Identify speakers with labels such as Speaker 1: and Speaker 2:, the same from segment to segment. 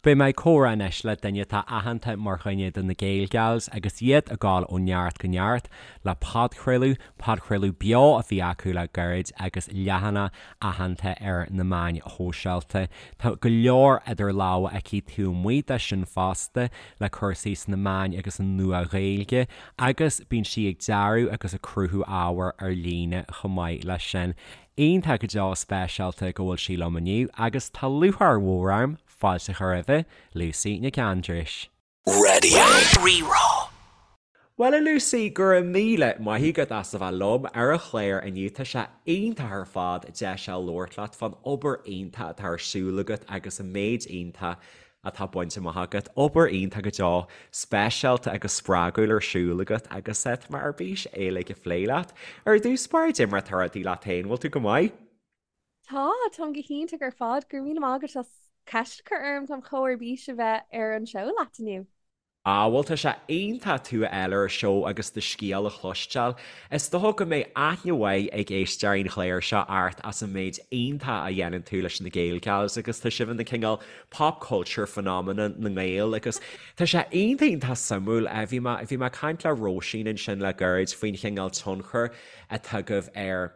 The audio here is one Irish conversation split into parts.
Speaker 1: Beidh mé ag comhrá anois le duine atá aitheanta mar dhuine de na Gaelgals agus iad ag gabháil ó neart go neart le podchraoladh, podchraoladh beo a bhí acu le gairid agus leathanach aitheanta ar na meáin shóisialta. Tá go leor idir lámha aici taobh amuigh de sin fosta le cúrsaí sna meáin agus an Nua-Ghaeilge agus bíonn sí ag dearadh agus ag cruthú ábhair ar líne chomh maith leis sin. Iontach go deo speisialta go bhfuil sí liom inniu agus tá lúcháir mhór orm fáilte a chur roimhe, Lucy Nic Aindreis.
Speaker 2: Radio Rí-Rá.
Speaker 1: Bhuel a Lucy, go raibh míle maith agat as a bheith liom ar an chlár inniu. Tá sé iontach ar fad deis a labhairt leat fán obair iontach atá ar siúl agat agus an méid iontach atá bainte amach agat. Obair iontach go deo, speisialta agus spreagúil ar siúl agat agus tá mé ar bís é uilig a phlé leat. Ar dtús báire, cad é mar atá rudaí leat féin, bhfuil tú go maith?
Speaker 3: Tá, táim go hiontach ar fad. Go raibh míle maith agat as ceist a chur orm, táim chomh ar bís a bheith ar an seó leat inniu.
Speaker 1: Ah, bhuel tá sé iontach tú a fháil ar an seó agus do scéal a chloisteáil. Is dócha go mbeidh aithne mhaith ag éisteoirí an chláir seo ort as an méid iontach a dhéanann tú leis na Gaelgals agus tá sibh ina cineál pop culture phenomenon na nGael agus tá sé iontach iontach suimiúil. Bhí mé, bhí mé ag caint le Róisín ansin le gairid faoin chineál tionchair atá agaibh ar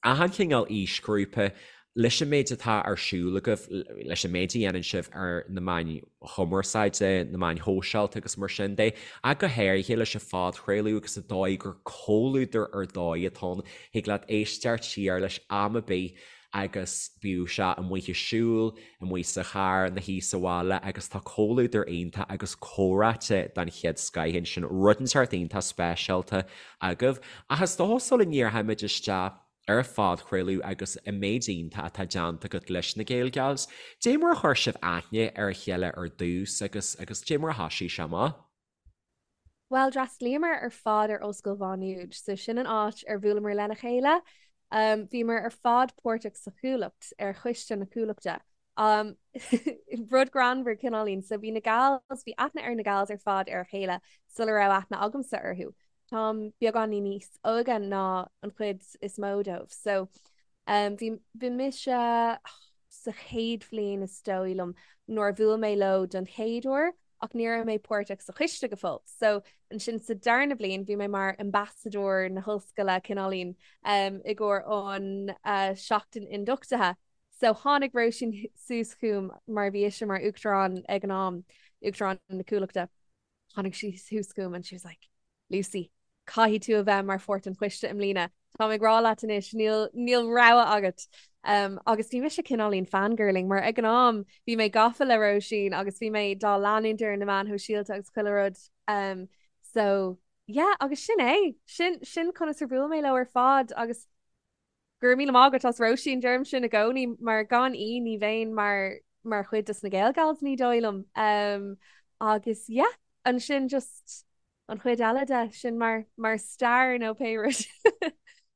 Speaker 1: achan chineál aoisghrúpa, leis an méid atá ar siúl agaibh, leis an méid a dhéanann sibh ar na meáin chumarsáide, na meáin shóisialta agus mar sin de, ach go háirithe leis an phodchraoladh agus an dóigh gur comhluadar ar dóigh atá ann, thig leat éisteacht siar leis am ar bith agus bíodh sé amuigh ag siúl, amuigh sa charr, ina shuí sa bhaile agus tá comhluadar iontach agus comhráite den chéad scoith ansin, rud inteacht iontach speisialta agaibh. Ach is dócha sula ndíreoimid isteach ar an phodchraoladh agus an méid iontach atá déanta agat leis na Gaelgals, dé mar a chuir sibh aithne ar a chéile ar dtús agus agus dé mar a thoisigh sé amach?
Speaker 3: Bhuel, d'fhreastlaíomar ar fad ar Ollscoil Mhá Nuad, so sin an áit ar bhuaileamar lena chéile. Bhíomar ar fad páirteach sa Chuallacht, ar choiste na Cuallachta. Rud greannmhar cineáilín. So bhí na gals, bhí aithne ar na gals ar fad ar a chéile sula raibh aithne agamsa orthu. Táim beagáinín níos óige ná an chuid is mó dóibh. So bhí, bhí mise sa chéad bhliain is dóigh liom nuair a bhuail mé leo don chéad uair. ach ní raibh mé páirteach sa choiste go fóill. So ansin sa darna bliain bhí mé mar ambasadóir na hollscoile cineáilín i gcomhair an seachtain ionduchtaithe. So tháinig Róisín suas chugam mar bhí ise mar uachtarán ag an am, uachtarán na Cuallachta. Tháinig sí suas chugam and she was like, Lucy, caithfidh tú a bheith mar pháirt den choiste i mbliana. Táim ag rá leat anois, níl, níl rogha agat. Um, agus bhí mise cineáilín fangirling mar ag an am bhí mé gafa le Róisín agus bhí mé dá leanúint ar na meáin shóisialta agus chuile rud. Um, so, yeah, agus sin é. Sin, sin conas ar bhuail mé leo ar fad agus Go raibh míle maith agat as Róisín, deirim sin i gcónaí mar gan í ní bheinn mar mar chuid des na Gaelgals ní dóigh liom. Um, agus yeah, ansin just an chuid eile de sin mar mar stair nó pé rud.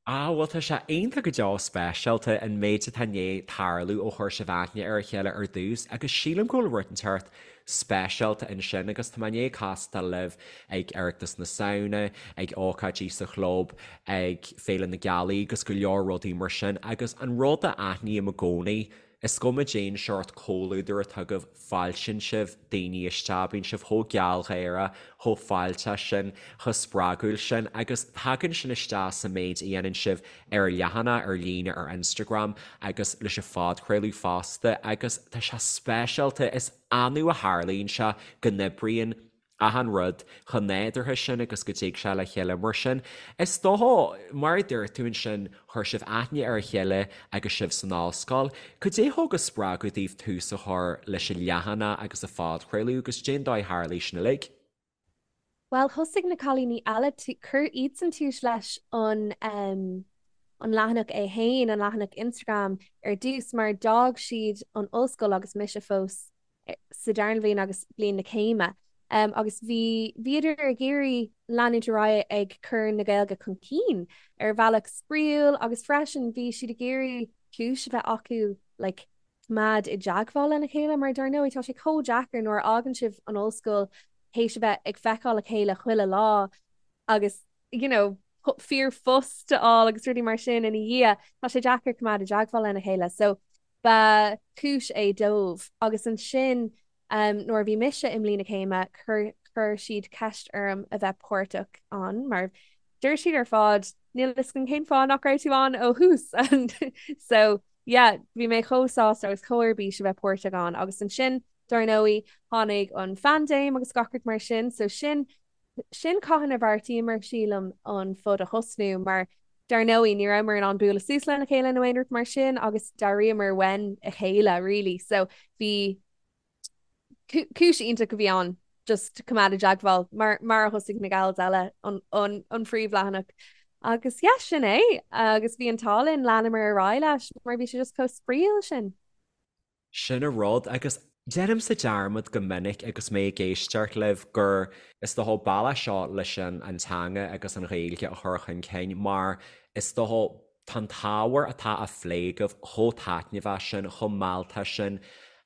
Speaker 1: Ah, bhuel tá sé iontach go deo speisialta an méid atá i ndiaidh tarlú ó chuir sibh aithne ar a chéile ar dtús agus sílim go bhfuil rud inteacht speisialta ansin agus tá mé i ndiaidh castáil libh ag Oireachtas na Samhna, ag ócáidí sa chlub, ag Féile na Gealaí agus go leor rudaí mar sin agus an rud a aithním i gcónaí, is cuma cén seort comhluadar atá agaibh, fáiltíonn sibh daoine isteach, bíonn sibh chomh gealgháireach, chomh fáilteach sin, chomh spreagúil sin agus tagann sin isteach sa méid a dhéanann sibh ar an leathanach ar líne ar Instagram agus leis an phodchraoladh fosta agus tá sé speisialta, is annamh a tharlaíonn sé go n-oibríonn achan rud chomh nádúrtha sin agus go dtig sé le chéile mar sin. Is dócha, mar a dúirt tú ansin, chuir sibh aithne ar a chéile agus sibh san ollscoil. Cad é a thug an spreagadh daoibh tús a chur leis an leathanach agus an phodchraoladh agus cén dóigh a tharlaigh sin uilig?
Speaker 3: Bhuel, thosaigh na cailíní eile, chuir iadsan tús leis an an leathanach é fhéin, an leathanach Instagram ar dtús mar d'fhág siad an ollscoil agus mise fós sa darna bhliain agus bliain na céime. Agus bhí, bhíodar ag iarraidh leanúint ar aghaidh ag cur na Gaeilge chun cinn ar bhealach spraíúil agus freisin bhí siad ag iarraidh cúis a bheith acu like coimeád i dteagmháil lena chéile mar dar ndóigh tá sé chomh deacair nuair a fhágann sibh an ollscoil théis a bheith ag feiceáil a chéile chuile lá agus you know ríomhphost a fháil agus rudaí mar sin ina dhiaidh, tá sé deacair coimeád i dteagmháil lena chéile. So ba chúis é dóibh. Agus ansin. Nuair a bhí mise i mbliain na céime, chuir chuir siad ceist orm a bheith páirteach ann mar deir siad ar fad níl a fhios againn cén fáth nach raibh tú ann ó thús and so yeah bhí mé chomh sásta agus chomh ar bís a bheith páirteach ann agus ansin dar ndóigh tháinig an phaindéim agus gach rud mar sin so sin sin cathain a bheartaíomar sílim an pod a thosnú mar dar ndóigh ní rabhamar in ann bualadh suas lena chéile nó aon rud mar sin agus d'airíomar uainn a chéile really so bhí cúis iontach a bhí ann just coimeád i dteagmháil mar mar a thosaigh na gals eile an an an phríomhleathanach agus yeah sin é agus bhí an t-ádh linn leanamar ar aghaidh leis mar bhí sé just chomh spraíúil sin.
Speaker 1: Sin an rud, agus déanaimse dearmad go minic agus mé ag éisteacht libh gur is dócha bealach seo leis an an teanga agus an Ghaeilge a chur chun cinn mar is dócha tá an t-ábhar atá á phlé agaibh chomh taitneamhach sin, chomh mealltach sin,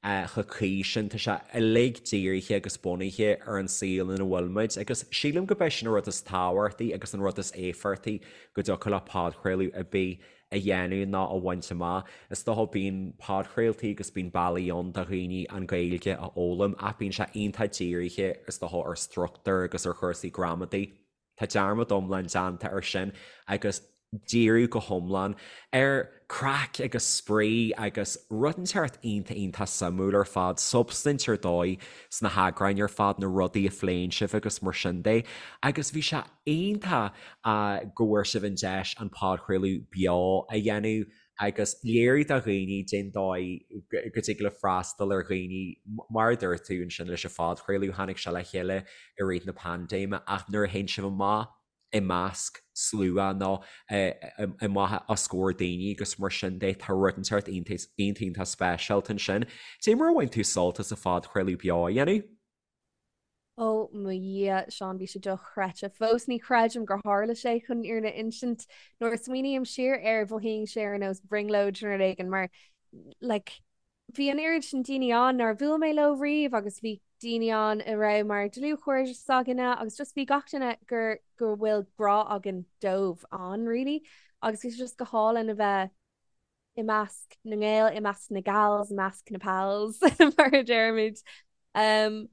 Speaker 1: chomh cuí sin, tá sé uilig dírithe agus bunaithe ar an saol ina bhfuil muid agus sílim go b'é sin an rud is tábhachtaí agus an rud is éifeachtaí go dtiocfadh le podchraoladh ar bith a dhéanamh ná a bhaint amach. Is dócha bíonn podchraoltaí agus bíonn bealaí ann do dhaoine an Ghaeilge a fhoghlaim ach bíonn sé iontach dírithe is dócha ar struchtúr agus ar chúrsaí gramadaí. Tá dearmad iomlán déanta ar sin agus díriú go hiomlán ar craic agus spraoi agus rud inteacht iontach iontach suimiúil ar fad, substaint ar dóigh sna heagráin ar fad, na rudaí a phléann sibh agus mar sin de. Agus bhí sé iontach go bhfuair sibh an deis an podchraoladh beo a dhéanamh agus léiriú do dhaoine cén dóigh go dtig le freastal ar dhaoine mar a dúirt tú ansin leis an phodchraoladh, tháinig sé le chéile i rith na paindéime ach nuair a théann sibh amach i measc slua nó amach os comhair daoine agus mar sin de tá rud inteacht iontach iontach speisialta ansin. Cad é mar a bhain tú sult as an phodchraoladh beo a dhéanamh?
Speaker 3: Ó mo Dhia, Seán, bhí sé dochreidte. Fós ní chreidim gur tharla sé chun an fhírinne a insint. Nuair a smaoiním siar air, mhothaíonn sé ar nós brionglóid nó rud éigin mar like bhí an oiread sin daoine ann nár bhuail mé leo riamh agus bhí daoine ann a raibh mar dlúthchairde s'againne agus just bhí gach duine gur go bhfuil grá againn dóibh ann really agus bhí sé just go hálainn a bheith i measc na nGael, i measc na gals, i measc na pals mar a deirimid. Um,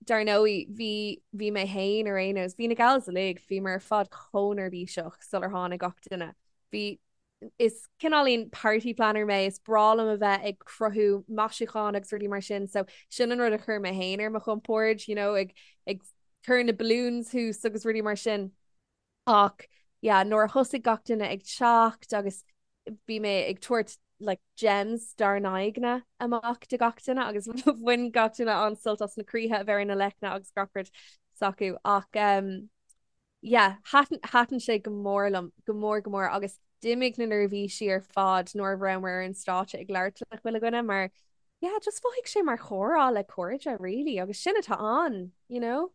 Speaker 3: dar ndóigh, bhí bhí mé féin ar aon nós, bhí na gals uilig, bhíomar ar fad chomh neirbhíseach sular tháinig gach duine. Bhí is cineáilín party planner mé, is breá liom a bheith ag cruthú maisiúcháin agus rudaí mar sin, so sin an rud a chuir mé féin ar mo chompord, you know, ag ag cur na balloons thuas agus rudaí mar sin. Ach yeah, nuair a thosaigh gach duine ag teacht agus bhí mé ag tabhairt like gems dár n-aghaidheanna amach do gach duine agus bhain gach duine an-sult as na croíthe a bheith ar na leicne agus gach rud s'acu. Ach um, yeah, thaitin, thaitin sé go mór liom, go mór go mór agus d'imigh na neirbhísí ar fad nuair a rabhamar ar an stáitse ag labhairt le chuile dhuine mar yeah, just mhothaigh sé mar chomhrá le cairde really agus sin atá ann, you know?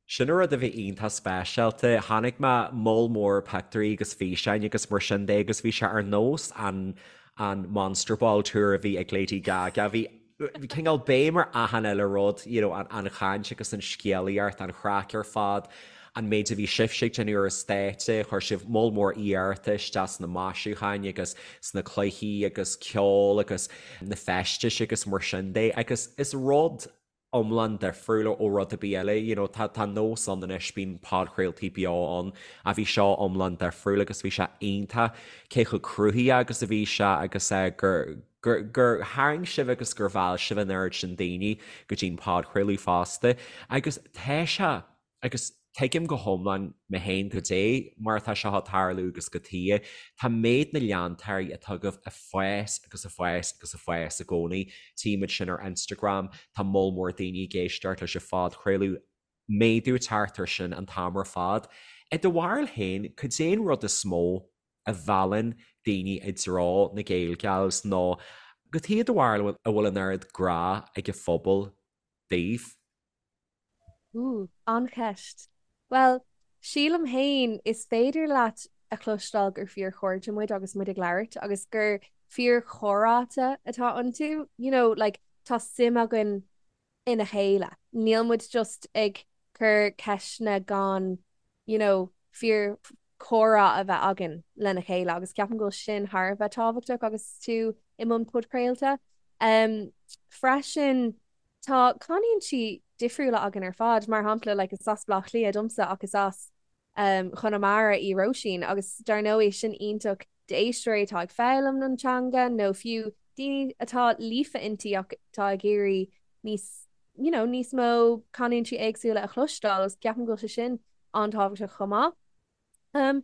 Speaker 1: Sin an rud a bhí iontach speisialta. Chonaic mé moll mór pictiúirí agus físeáin agus mar sin de agus bhí sé ar nós an an Monster Ball Tour a bhí ag Lady Gaga. Bhí cineál béim ar achan uile rud, you know, an an chaint agus an scéalaíocht, an chraic ar fad, an méid a bhí sibhse ag déanamh ar an stáitse, chuir sibh moll mór iarrachta isteach sna maisiúcháin agus sna cluichí agus ceol agus na feistis agus mar sin de agus is rud iomlán difriúil ó rud ar bith eile, you know, tá tá nós ann anois, bíonn podchraoltaí beo ann, ach bhí seo iomlán difriúil agus bhí sé iontach cé chomh cruthaitheach agus a bhí sé agus eh gur gur gur tharraing sibh agus gur mheall sibh an oiread sin daoine go dtí an podchraoladh fosta agus tá sé Agus tuigim go hiomlán mé féin goidé mar atá seo ag tarlú agus cad chuige. Tá méid na leantóirí atá agaibh ag fás agus ag fás agus ag fás i gcónaí. Tímid sin ar Instagram, tá moll mór daoine ag éisteacht leis an phodchraoladh, méadú ag teacht air sin an t-am ar fad. I do bharúil féin, cad é an rud is mó a mheallann daoine i dtreo na Gaelgals nó cad chuige i do bharúil a bhfuil an oiread grá ag an phobal daoibh?
Speaker 3: Ooh, an-cheist. Bhuel, sílim féin, is féidir leat a chloisteáil gur fíorchairde muid agus muid ag labhairt agus gur fíorchomhráite atá iontu. You know, like, tá suim againn ina chéile. Níl muid just ag cur ceisteanna gan, you know, fíorchomhrá a bheith againn lena chéile agus ceapaim go bhfuil sin thar a bheith tábhachtach agus tú i mbun podchraolta. Um, freisin, Tá canúintí difriúla againn ar fad, mar shampla like is as Baile Átha Cliath domsa ach is as Conamara í Róisín agus dar ndóigh sin iontach d'éisteoirí atá ag foghlaim an teanga nó fiú daoine atá líofa inti ach atá ag iarraidh níos you know níos mó canúintí éagsúla a chloisteáil agus ceapaim go bhfuil sé sin an-tábhachtach chomh maith. Um,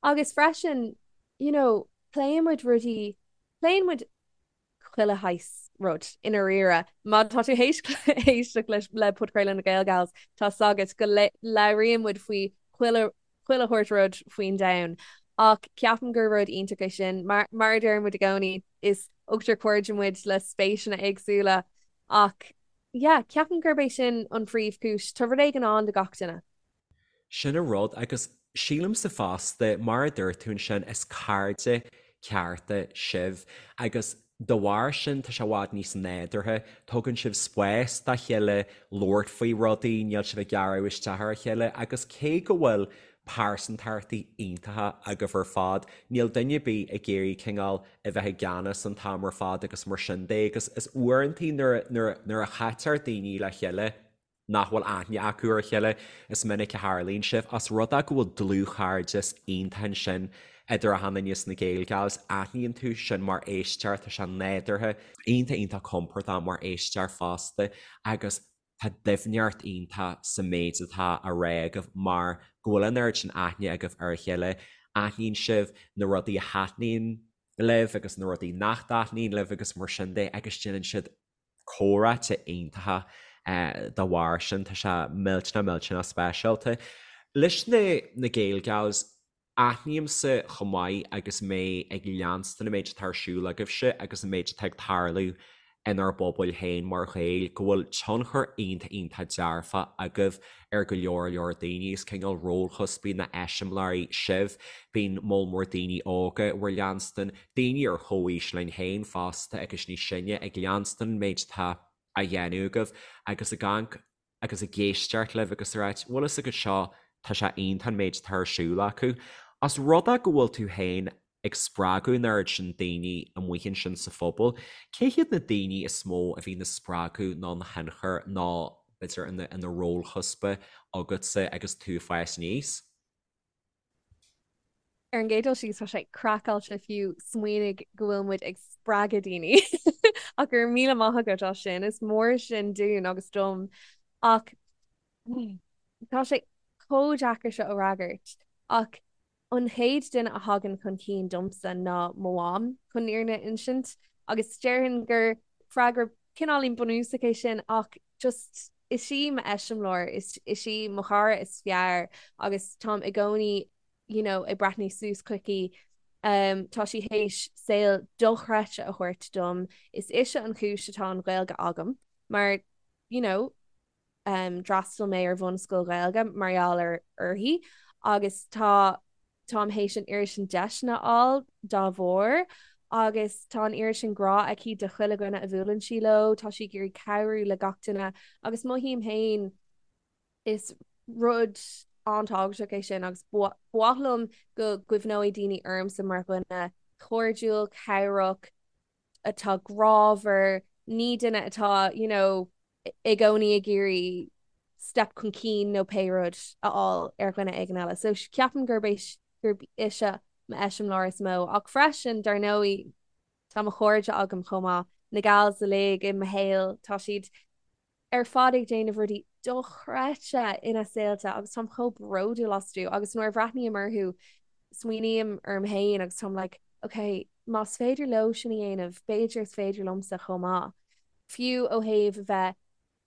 Speaker 3: agus freisin you know pléann muid rudaí pléann muid chuile shaghas rud i ndáiríre. Má tá tú théis éisteacht leis le podchraoladh na Gaelgals, tá 's agat go labhraíonn muid faoi chuile chuile shórt rud faoin domhan. Ach ceapaim gur rud iontach é sin. Mar mar a deir muid i gcónaí, is ochtar cairde muid le spéiseanna éagsúla. Ach yeah, ceapaim gurb é sin an phríomhchúis. Tá rud éigin ann do gach duine.
Speaker 1: Sin an rud, agus sílimse fosta, mar a dúirt tú ansin, is cairde cearta sibh agus dá bharr sin tá sé i bhfad níos nádúrtha, tugann sibh spás dá chéile labhairt faoi rudaí, níl sibh ag gearradh isteach ar a chéile agus cé go bhfuil pearsantachtaí iontacha agaibh ar fad, níl duine ar bith ag iarraidh cineál a bheith i gceannas an t-am ar fad agus mar sin de agus is uaireantaí nuair nuair a chaitear daoine le chéile, nach bhfuil aithne acu ar a chéile, is minic a tharlaíonn sé, os rud é go bhfuil dlúthchairdeas iontach ansin idir achan duine sna Gaelgals, aithníonn tú sin mar éisteoir, tá sé nádúrtha, iontach iontach compordach mar éisteoir fosta agus tá doimhneacht iontach sa méid atá á rá agaibh mar go bhfuil an oiread sin aithne agaibh ar a chéile, aithníonn sibh na rudaí a thaitníonn libh agus na rudaí nach dtaitníonn libh agus mar sin de agus déanann siad comhráite iontacha dá bharr sin. Tá sé millteanach millteanach speisialta. Leis na na Gaelgals, aithnímse chomh maith agus mé ag leanstan an méid atá ar siúl agaibhse agus an méid atá ag tarlú inár bpobail féin mar Ghaeil, go bhfuil tionchar iontach iontach dearfach agaibh ar go leor leor daoine. Is cineál rólchuspaí nó eiseamláirí sibh. Bíonn moll mór daoine óga bhur leanstan, daoine ar chomhaois linn féin fosta agus níos sine ag leanstan an méid atá á dhéanamh agaibh agus ag amharc agus ag éisteacht libh agus ag ráit, bhfuil fhios agat seo, tá sé iontach an méid atá ar siúl acu. Os rud é go bhfuil tú féin ag spreagadh an oiread sin daoine amuigh ansin sa phobal, cé hiad na daoine is mó a bhí ina spreagadh nó ina thionchar nó b'fhéidir ina rólchuspa agatsa agus tú ag fás aníos?
Speaker 3: Ar an gcéad dul síos, tá sé craiceáilte fiú smaoineamh go bhfuil muid ag spreagadh daoine ach go raibh míle maith agat as sin, is mór sin dúinn agus dom. Ach tá sé chomh deacair seo a fhreagairt ach an chéad duine a thagann chun cinn domsa ná mo mham, chun an fhírinne a insint, agus déarfainn gur freagra cineáilín bunúsach é sin ach just is í m'eiseamláir, is is í mo chara is fearr agus táim i gcónaí you know ag breathnú suas chuici. Um, tá sí théis saol dochreidte a thabhairt dom. Is ise an chúis atá an Ghaeilge agam mar you know um, d'fhreastail mé ar bhunscoil Ghaeilge mar gheall ar uirthi agus tá Táim théis an oiread sin deiseanna a fháil dá bharr agus tá an oiread sin grá aici do chuile dhuine a bhuaileann sí leo, tá sí ag iarraidh cabhrú le gach duine agus mothaím féin is rud an-tábhachtach é sin agus ba mhaith liom go gcuimhneoidh daoine ormsa mar dhuine cairdiúil, cabhrach, atá grámhar, ní duine atá you know i gcónaí ag iarraidh step chun cinn nó pé rud a fháil ar dhuine éigin eile. So ceapaim gurb é gurb ise m'eiseamláir is mó. Ach freisin, dar ndóigh, tá mo chairde agam chomh maith, na gals uilig i mo shaol, tá siad ar fad ag déanamh rudaí dochreidte ina saolta agus táim chomh bródúil astu agus nuair a bhreathnaím orthu smaoiním orm féin agus táim like ok, más féidir leo sin a dhéanamh, b'fhéidir is féidir liomsa chomh maith. Fiú ó thaobh a bheith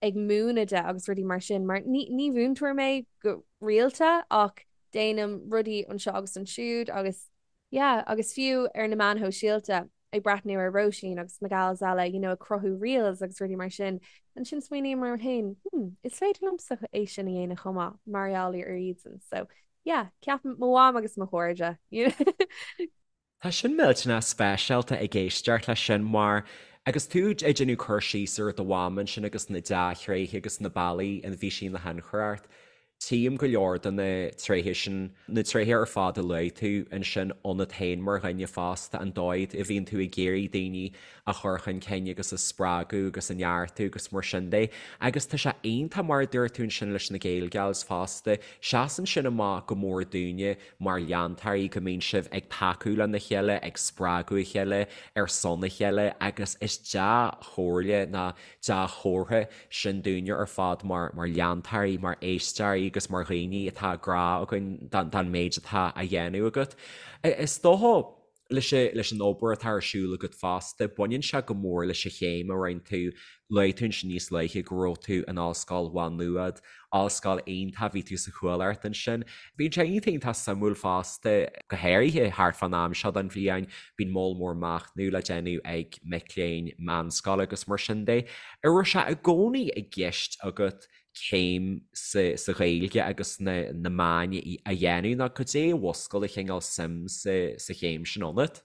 Speaker 3: ag múineadh de agus rudaí mar sin, mar ní ní mhúinteoir mé go rialta ach déanaim rudaí anseo agus ansiúd agus yeah agus fiú ar na meáin shóisialta ag breathnú ar Róisín agus na gals eile you know ag cruthú reels agus rudaí mar sin, ansin smaoiním orm féin hmm is féidir liomsa é sin a dhéanamh chomh maith mar gheall ar iadsan so yeah ceapaim mo mham agus mo chairde you know.
Speaker 1: Tá sin millteanach speisialta ag éisteacht leis sin mar agus tú ag déanamh cur síos ar do mham ansin agus na dea-thréithe agus na bealaí ina bhí sí ina thionchar ort. Tchím go leor de na tréithe sin, na tréithe ar fad a luaigh tú ansin ionat féin mar dhuine fásta, an dóigh a bhíonn tú ag iarraidh daoine a chur chun cinn agus a spreagadh agus a neartú agus mar sin de. Agus tá sé iontach mar a dúirt tú ansin leis na Gaelgals fosta, seasann sin amach go mór dúinne mar leantóirí go mbíonn sibh ag tacú lena chéile, ag spreagadh a chéile, ar son a chéile agus is dea-chomhairle ná dea-chomhartha sin dúinne ar fad mar leantóirí, mar éisteoirí agus mar dhaoine atá grá againn don méid atá á dhéanamh agat. Is dócha leis an obair atá ar siúl agat fosta, baineann sé go mór leis an chéim a rinne tú, luaigh tú ansin níos luaithe go raibh tú in Ollscoil Mhá Nuad, ollscoil iontach, bhí tú sa Chuallacht ansin. Bíonn sé iontach iontach suimiúil fosta, go háirithe thart fán am seo den bhliain, bíonn moll mór machnaimh le déanamh ag mic léinn meánscoile agus mar sin de. An raibh sé i gcónaí i gceist agat céim sa Ghaeilge agus sna meáin a dhéanamh nó cad é a mhúscail an cineál suim sa chéim sin ionat?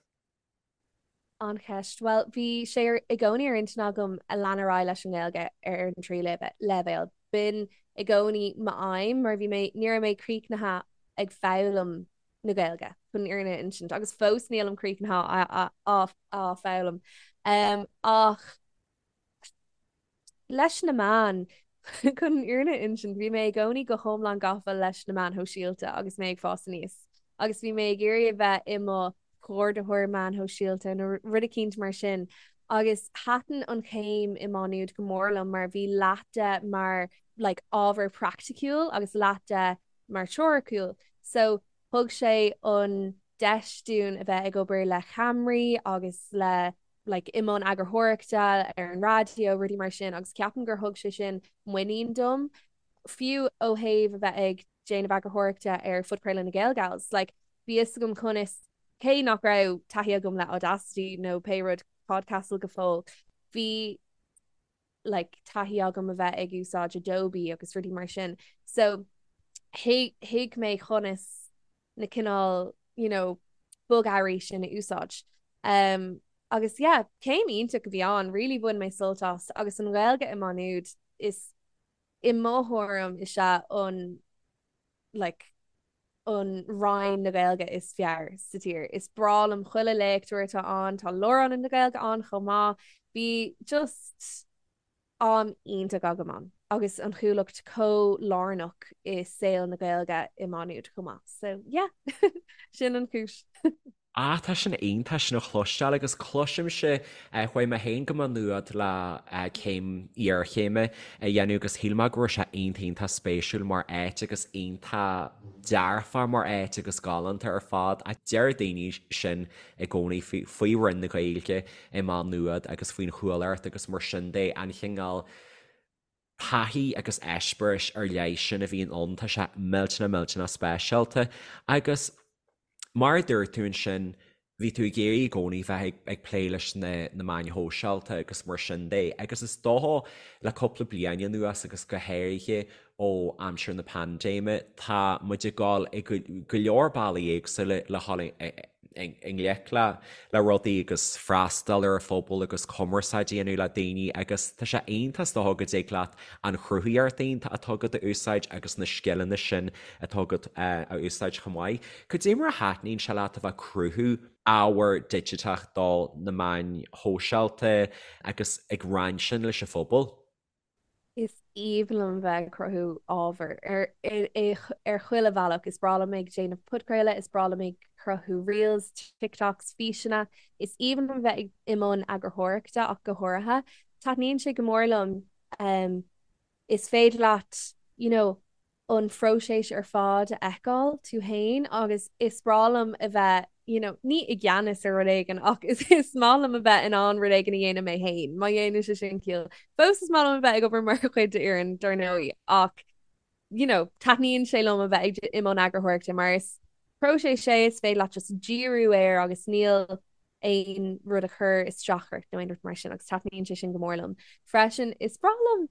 Speaker 3: An-cheist. Bhuel, bhí sé i gcónaí ar intinn agam a lean ar aghaidh leis an nGaeilge ar an tríú leibhéal. B'in i gcónaí m'aidhm mar bhí mé, ní raibh mé críochnaithe ag foghlaim na Gaeilge, chun an fhírinne a insint, agus fós nílim críochnaithe á foghlaim. Ach leis na meáin, chun an fhírinne a insint, bhí mé i gcónaí go hiomlán gafa leis na meáin shóisialta agus mé ag fás aníos agus bhí mé ag iarraidh a bheith i mo chomhordaitheoir meáin shóisialta nó rud eicínt mar sin agus thaitin an chéim i Má Nuad go mór liom mar bhí leath de mar like ábhar praiticiúil agus leath de mar teoiriciúil so thug sé an deis dúinn a bheith ag obair le ceamaraí agus le like i mbun eagarthóireachta ar an raidió, rudaí mar sin agus ceapaim gur thug sé sin muinín dom, fiú ó thaobh a bheith ag déanamh eagarthóireachta ar phodchraoladh na Gaelgals, like bhí fhios agam conas, cé nach raibh taithí agam le Audacity nó pé rud Podcastle go fóill, bhí like taithí agam a bheith ag úsáid Adobe agus rudaí mar sin. So thuig mé conas na cineál you know bogearraí sin a úsáid. Um, agus yeah, céim iontach a bhí ann, really bhain mé sult as agus an Ghaeilge i Má Nuad is i mo thuairim is ea an like an Roinn na Gaeilge is fearr sa tír. Is breá liom chuile léachtóir atá ann, tá Lárionad na Gaeilge ann chomh maith. Bhí just am iontach agam ann agus an Chuallacht chomh lárnach i saol na Gaeilge i Má Nuad chomh maith. So yeah, sin an chúis.
Speaker 1: Ah, tá sin iontach sin a chloisteáil agus cloisimse, chuaigh mé féin go Má Nuad le céim iarchéime a dhéanamh agus shíl mé go raibh sé iontach iontach spéisiúil mar áit agus iontach dearfach mar áit agus galánta ar fad ach deir daoine sin i gcónaí faoi Roinn na Gaeilge i Má Nuad agus faoin Chuallacht agus mar sin de, an chineál taithí agus eispéiris ar leith sin a bhíonn ann, tá sé millteanach millteanach speisialta. Agus mar a dúirt tú ansin, bhí tú ag iarraidh i gcónaí bheith ag plé leis na meáin shóisialta agus mar sin de agus is dócha le cúpla bliain anuas agus go háirithe ó aimsir na paindéime, tá muid ag dul i go leor bealaí éagsúla le dhul i ngleic le rudaí agus freastal ar an phobal agus cumarsáid a dhéanamh le daoine agus tá sé iontach is dócha go dtig leat an chruthaíocht iontach atá agat a úsáid agus na scileanna sin atá agat a úsáid chomh maith. Cad é mar a thaitníonn sé leat a bheith ag cruthú ábhar digiteach do na meáin shóisialta agus ag roinnt sin leis an phobal?
Speaker 3: Is aoibhinn liom bheith ag cruthú ábhair ar chuile bhealach. Is breá liom ag déanamh podchraoladh, is breá liom ag cruthú reels, TikToks, físeanna. Is aoibhinn liom bheith i mbun eagarthóireachta ach go háirithe. Taitníonn sé go mór liom. Is féidir leat, you know, an phróiseas ar fad a fheiceáil tú féin agus is breá liom a bheith you know ní i gceannas ar rud éigin ach is is maith liom a bheith in ann rud éigin a dhéanamh mé féin, má dhéanann sé sin ciall. Fós is maith liom a bheith ag obair mar chuid d'fhoireann dar ndóigh ach you know taitníonn sé liom a bheith ag i mbun eagarthóireachta mar is próiseas é is féidir leat just díriú air agus níl aon rud a chur isteach ort nó aon rud mar sin agus taitníonn sé sin go mór liom. Freisin is breá liom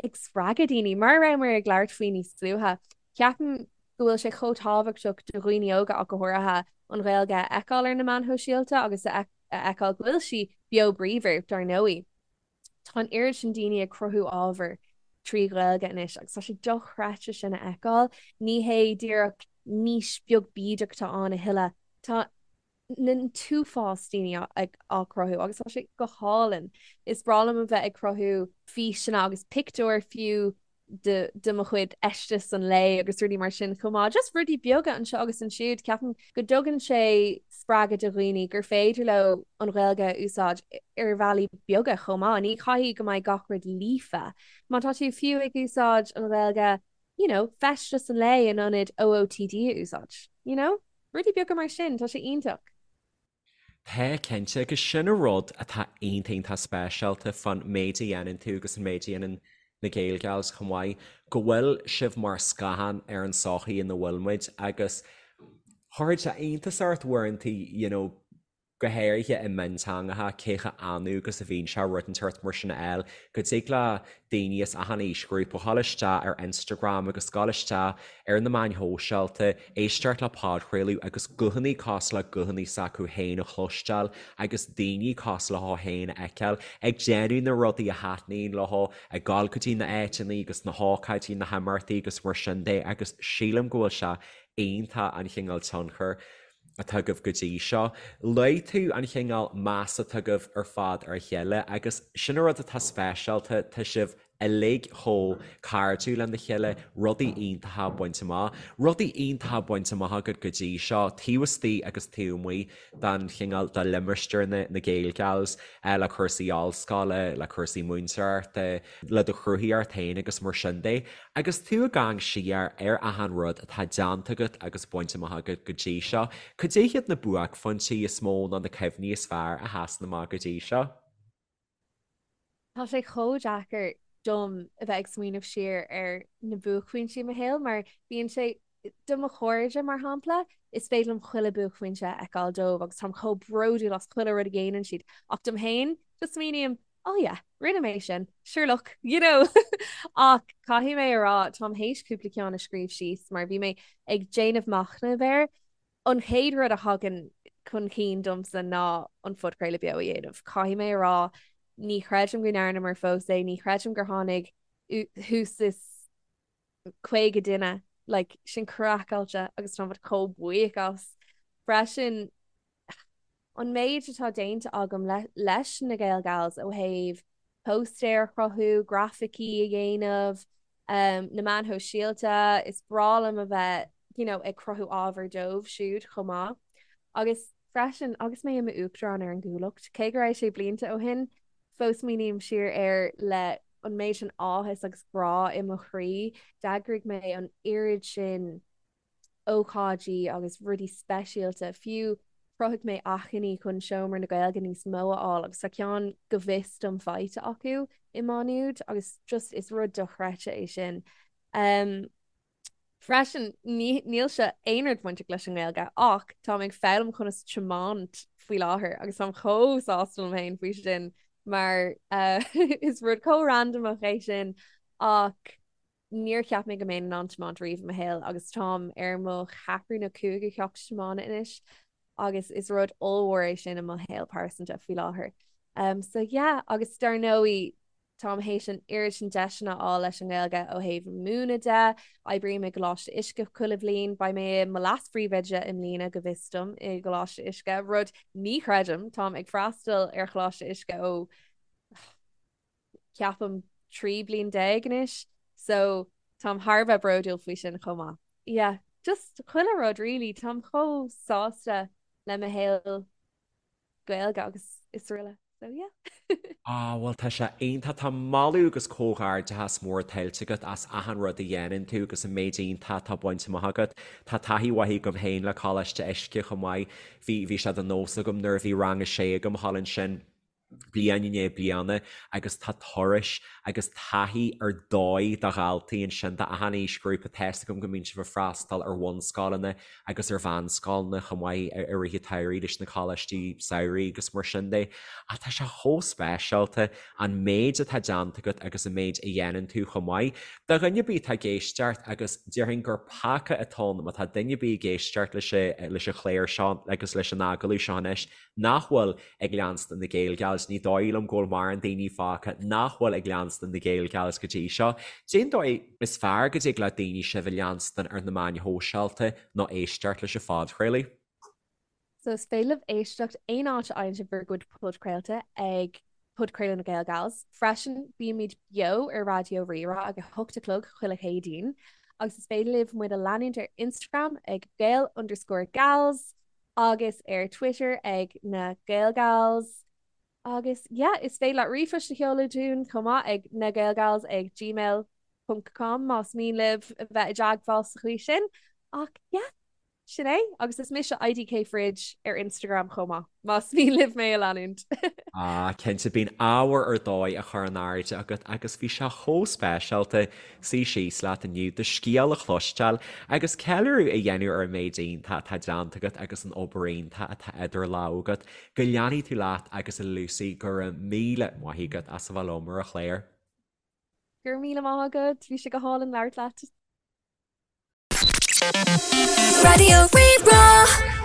Speaker 3: ag spreagadh daoine. Mar a rabhamar ag labhairt faoi níos luaithe, ceapaim go bhfuil sé chomh tábhachtach do dhaoine óga ach go háirithe an Ghaeilge a fheiceáil ar na meáin shóisialta agus a fheiceáil go bhfuil sí beo bríomhar, dar ndóigh. Tá an oiread sin daoine ag cruthú ábhair trí Ghaeilge anois agus tá sé dochreidte sin a fheiceáil. Ní hé díreach niche beag bídeach atá ann a thuilleadh, tá an t-uafás daoine á cruthú agus tá sé go hálainn. Is breá liom a bheith ag cruthú físeanna agus pictiúir fiú de de mo chuid fheisteas an lae agus rudaí mar sin chomh maith. Just rudaí beaga anseo agus ansiúd. Ceapaim go dtugann sé spreagadh do dhaoine gur féidir leo an Ghaeilge a úsáid ar bhealaí beaga chomh maith. Ní chaithfidh go mbeidh gach rud líofa. Má tá tú fiú ag úsáid an Ghaeilge, you know, feisteas an lae in ionad OOTD a úsáid, you know? Rudaí beaga mar sin, tá sé iontach.
Speaker 1: Tá, cinnte, agus sin an rud atá iontach iontach speisialta fán méid a dhéanann tú agus an méid a dhéanann na Gaelgals chomh maith, go bhfuil sibh mar scáthán ar an tsochaí ina bhfuil muid agus chuirfeadh sé iontas ort uaireanta, you know, go háirithe i mionteangacha, cé chomh annamh agus a bhíonn sé rud inteacht mar sin a fháil, go dtig le daoine as achan aoisghrúpa dhul isteach ar Instagram agus dhul isteach ar na meáin shóisialta, éisteacht le podchraoladh agus guthanna cosúil le guthanna s'acu féin a chloisteáil agus daoine cosúil leo féin a fheiceáil ag déanamh na rudaí a thaitníonn leo, ag dul go dtí na áiteanna agus na hócáidí, na himeachtaí agus mar sin de agus sílim go bhfuil sé iontach an chineál tionchair atá agaibh go dtí seo. Luaigh tú an chineál meas atá agaibh ar fad ar a chéile agus sin an rud atá speisialta, tá sibh uilig chomh cairdiúil lena chéile, rudaí iontacha bainte amach. Rudaí iontacha bainte amach agat go dtí seo, taobh istigh agus taobh amuigh den chineál de limistéar na na Gaelgals, le cúrsaí ollscoile, le cúrsaí múinteoireachta, le do chruthaíocht féin agus mar sin de. Agus tú ag amharc siar ar achan rud atá déanta agat agus bainte amach agat go dtí seo, cad é hiad na buaicphointí is mó nó na cuimhní is fearr a sheasann amach go dtí seo?
Speaker 3: Tá sé chomh deacair dom a bheith ag smaoineamh siar ar na buaicphointí i mo shaol mar bíonn sé, do mo chairde mar shampla, is féidir liom chuile buaicphointe a fheiceáil dóibh agus táim chomh bródúil as chuile rud a dhéanann siad ach dom féin, just smaoiním, oh yeah, rinne mé sin, sure look, you know! Ach caithfidh mé a rá, táim théis cúpla ceann a scríobh síos mar bhí mé ag déanamh machnaimh air. An chéad rud a thagann chun cinn domsa ná an phodchraoladh beo a dhéanamh. Caithfidh mé a rá, ní chreidim go ndearnamar fós é, ní chreidim gur tháinig thuas is 50 duine, like, sin craiceáilte agus táim chomh buíoch as. Freisin, an méid atá déanta agam leis na Gaelgals ó thaobh póstaeir a chruthú, grafaicí a dhéanamh, na meáin shóisialta, is breá liom a bheith you know ag cruthú ábhar dóibh siúd chomh maith. Agus freisin, agus mé i m'uachtarán ar an gCuallacht, cé go raibh sé blianta ó shin, fós smaoiním siar air le an méid sin áthas agus grá i mo chroí. D'eagraigh mé an oiread sin ócáidí agus rudaí speisialta, fiú chruthaigh mé achainí chun Seomra na Gaeilge níos mó a fháil agus tá ceann go bhfios dom faighte acu i Má Nuad agus just is rud dochreidte é sin. Um, freisin níl sé aon rud bainteach leis an nGaeilge ach táim ag foghlaim conas tiomáint faoi láthair agus táim chomh sásta liom féin faoi sin mar uh, is rud chomh randamach é sin ach Níor cheap mé go mbeinn in ann tiomáint riamh i mo shaol agus táim ar mo cheathrú nó cúigiú ceacht tiomána anois agus is rud ollmhór é sin i mo shaol pearsanta faoi láthair. Um, so yeah, agus dar ndóigh táim théis an oiread sin deiseanna a fháil leis an nGaeilge ó thaobh múineadh de, oibrím i gColáiste Uisce chuile bhliain, beidh mé i mo leas-phríomhoide i mbliana go bhfios dom i gColáiste Uisce, rud ní chreidim, táim ag freastal ar Choláiste Uisce ó ceapaim 13 bliain anois so táim thar a bheith bródúil faoi sin chomh maith. Yeah, just chuile rud really, táim chomh sásta le mo shaol Gaeilge agus is araile so yeah.
Speaker 1: Ah bhuel tá sé iontach, tá moladh agus comhghairdeachas mór tuillte agat as achan rud a dhéanann tú agus an méid iontach atá bainte amach agat. Tá taithí mhaith agam féin le Coláiste Uisce chomh maith, bhí bhí sé de nós agam nuair a bhí rang a sé agam thall ansin, bliain i ndiaidh bliana agus tá turais agus taithí ar dóigh do dhaltaí ansin d'achan aoisghrúpa. Tá's agam go mbíonn sibh ag freastal ar bhunscoileanna agus ar mheánscoileanna chomh maith i rith an tsamhraidh leis na coláistí samhraidh agus mar sin de. Ach tá sé chomh speisialta an méid atá déanta agat agus an méid a dhéanann tú chomh maith. Do dhuine ar bith atá ag éisteacht agus déarfainn gur peaca atá ann má tá duine ar bith ag éisteacht leis an chlár seo agus leis an agallamh seo anois nach bhfuil ag leanstan na Gaelgals. Gals, ní dóigh liom go bhfuil mórán daoine fágtha nach bhfuil ag leanstan na Gael Gals go dtí seo. Cén dóigh is fearr go dtig le daoine sibh a leanstan ar na meáin shóisialta nó éisteacht leis an phodchraoladh?
Speaker 3: So is féidir libh éisteacht aon áit a fhaigheann sibh bhur gcuid podchraolta ag Podchraoladh na Gael Gals. Freisin, bímid beo ar Raidió Rí-Rá ag a hocht a chlog chuile Chéadaoin agus is féidir libh muid a leanúint ar Instagram ag Gael underscore Gals agus ar Twitter ag na Gael Gals. Agus yeah, is féidir leat ríomhphost a sheoladh dúinn chomh maith ag nagaelgals ag gmail ponc com más mian libh a bheith i dteagmháil sa chaoi sin. Ach yeah, sin é. Agus is mise IDK Fridge ar Instagram chomh maith, más mian libh mé a leanúint.
Speaker 1: Ah, cinnte, bíonn ábhar ar dóigh á chur in airde agat agus bhí sé chomh speisialta suí síos leat inniu, do scéal a chloisteáil agus ceiliúradh a dhéanamh ar an méid iontach atá déanta agat agus an obair iontach atá idir lámha agat. Go leanfaidh tú leat agus a Lucy, go raibh míle maith agat as a bheith liom ar an chlár.
Speaker 3: Go raibh míle maith agat, bhí sé go hálainn labhairt leat.
Speaker 2: Raidió Rí-Rá.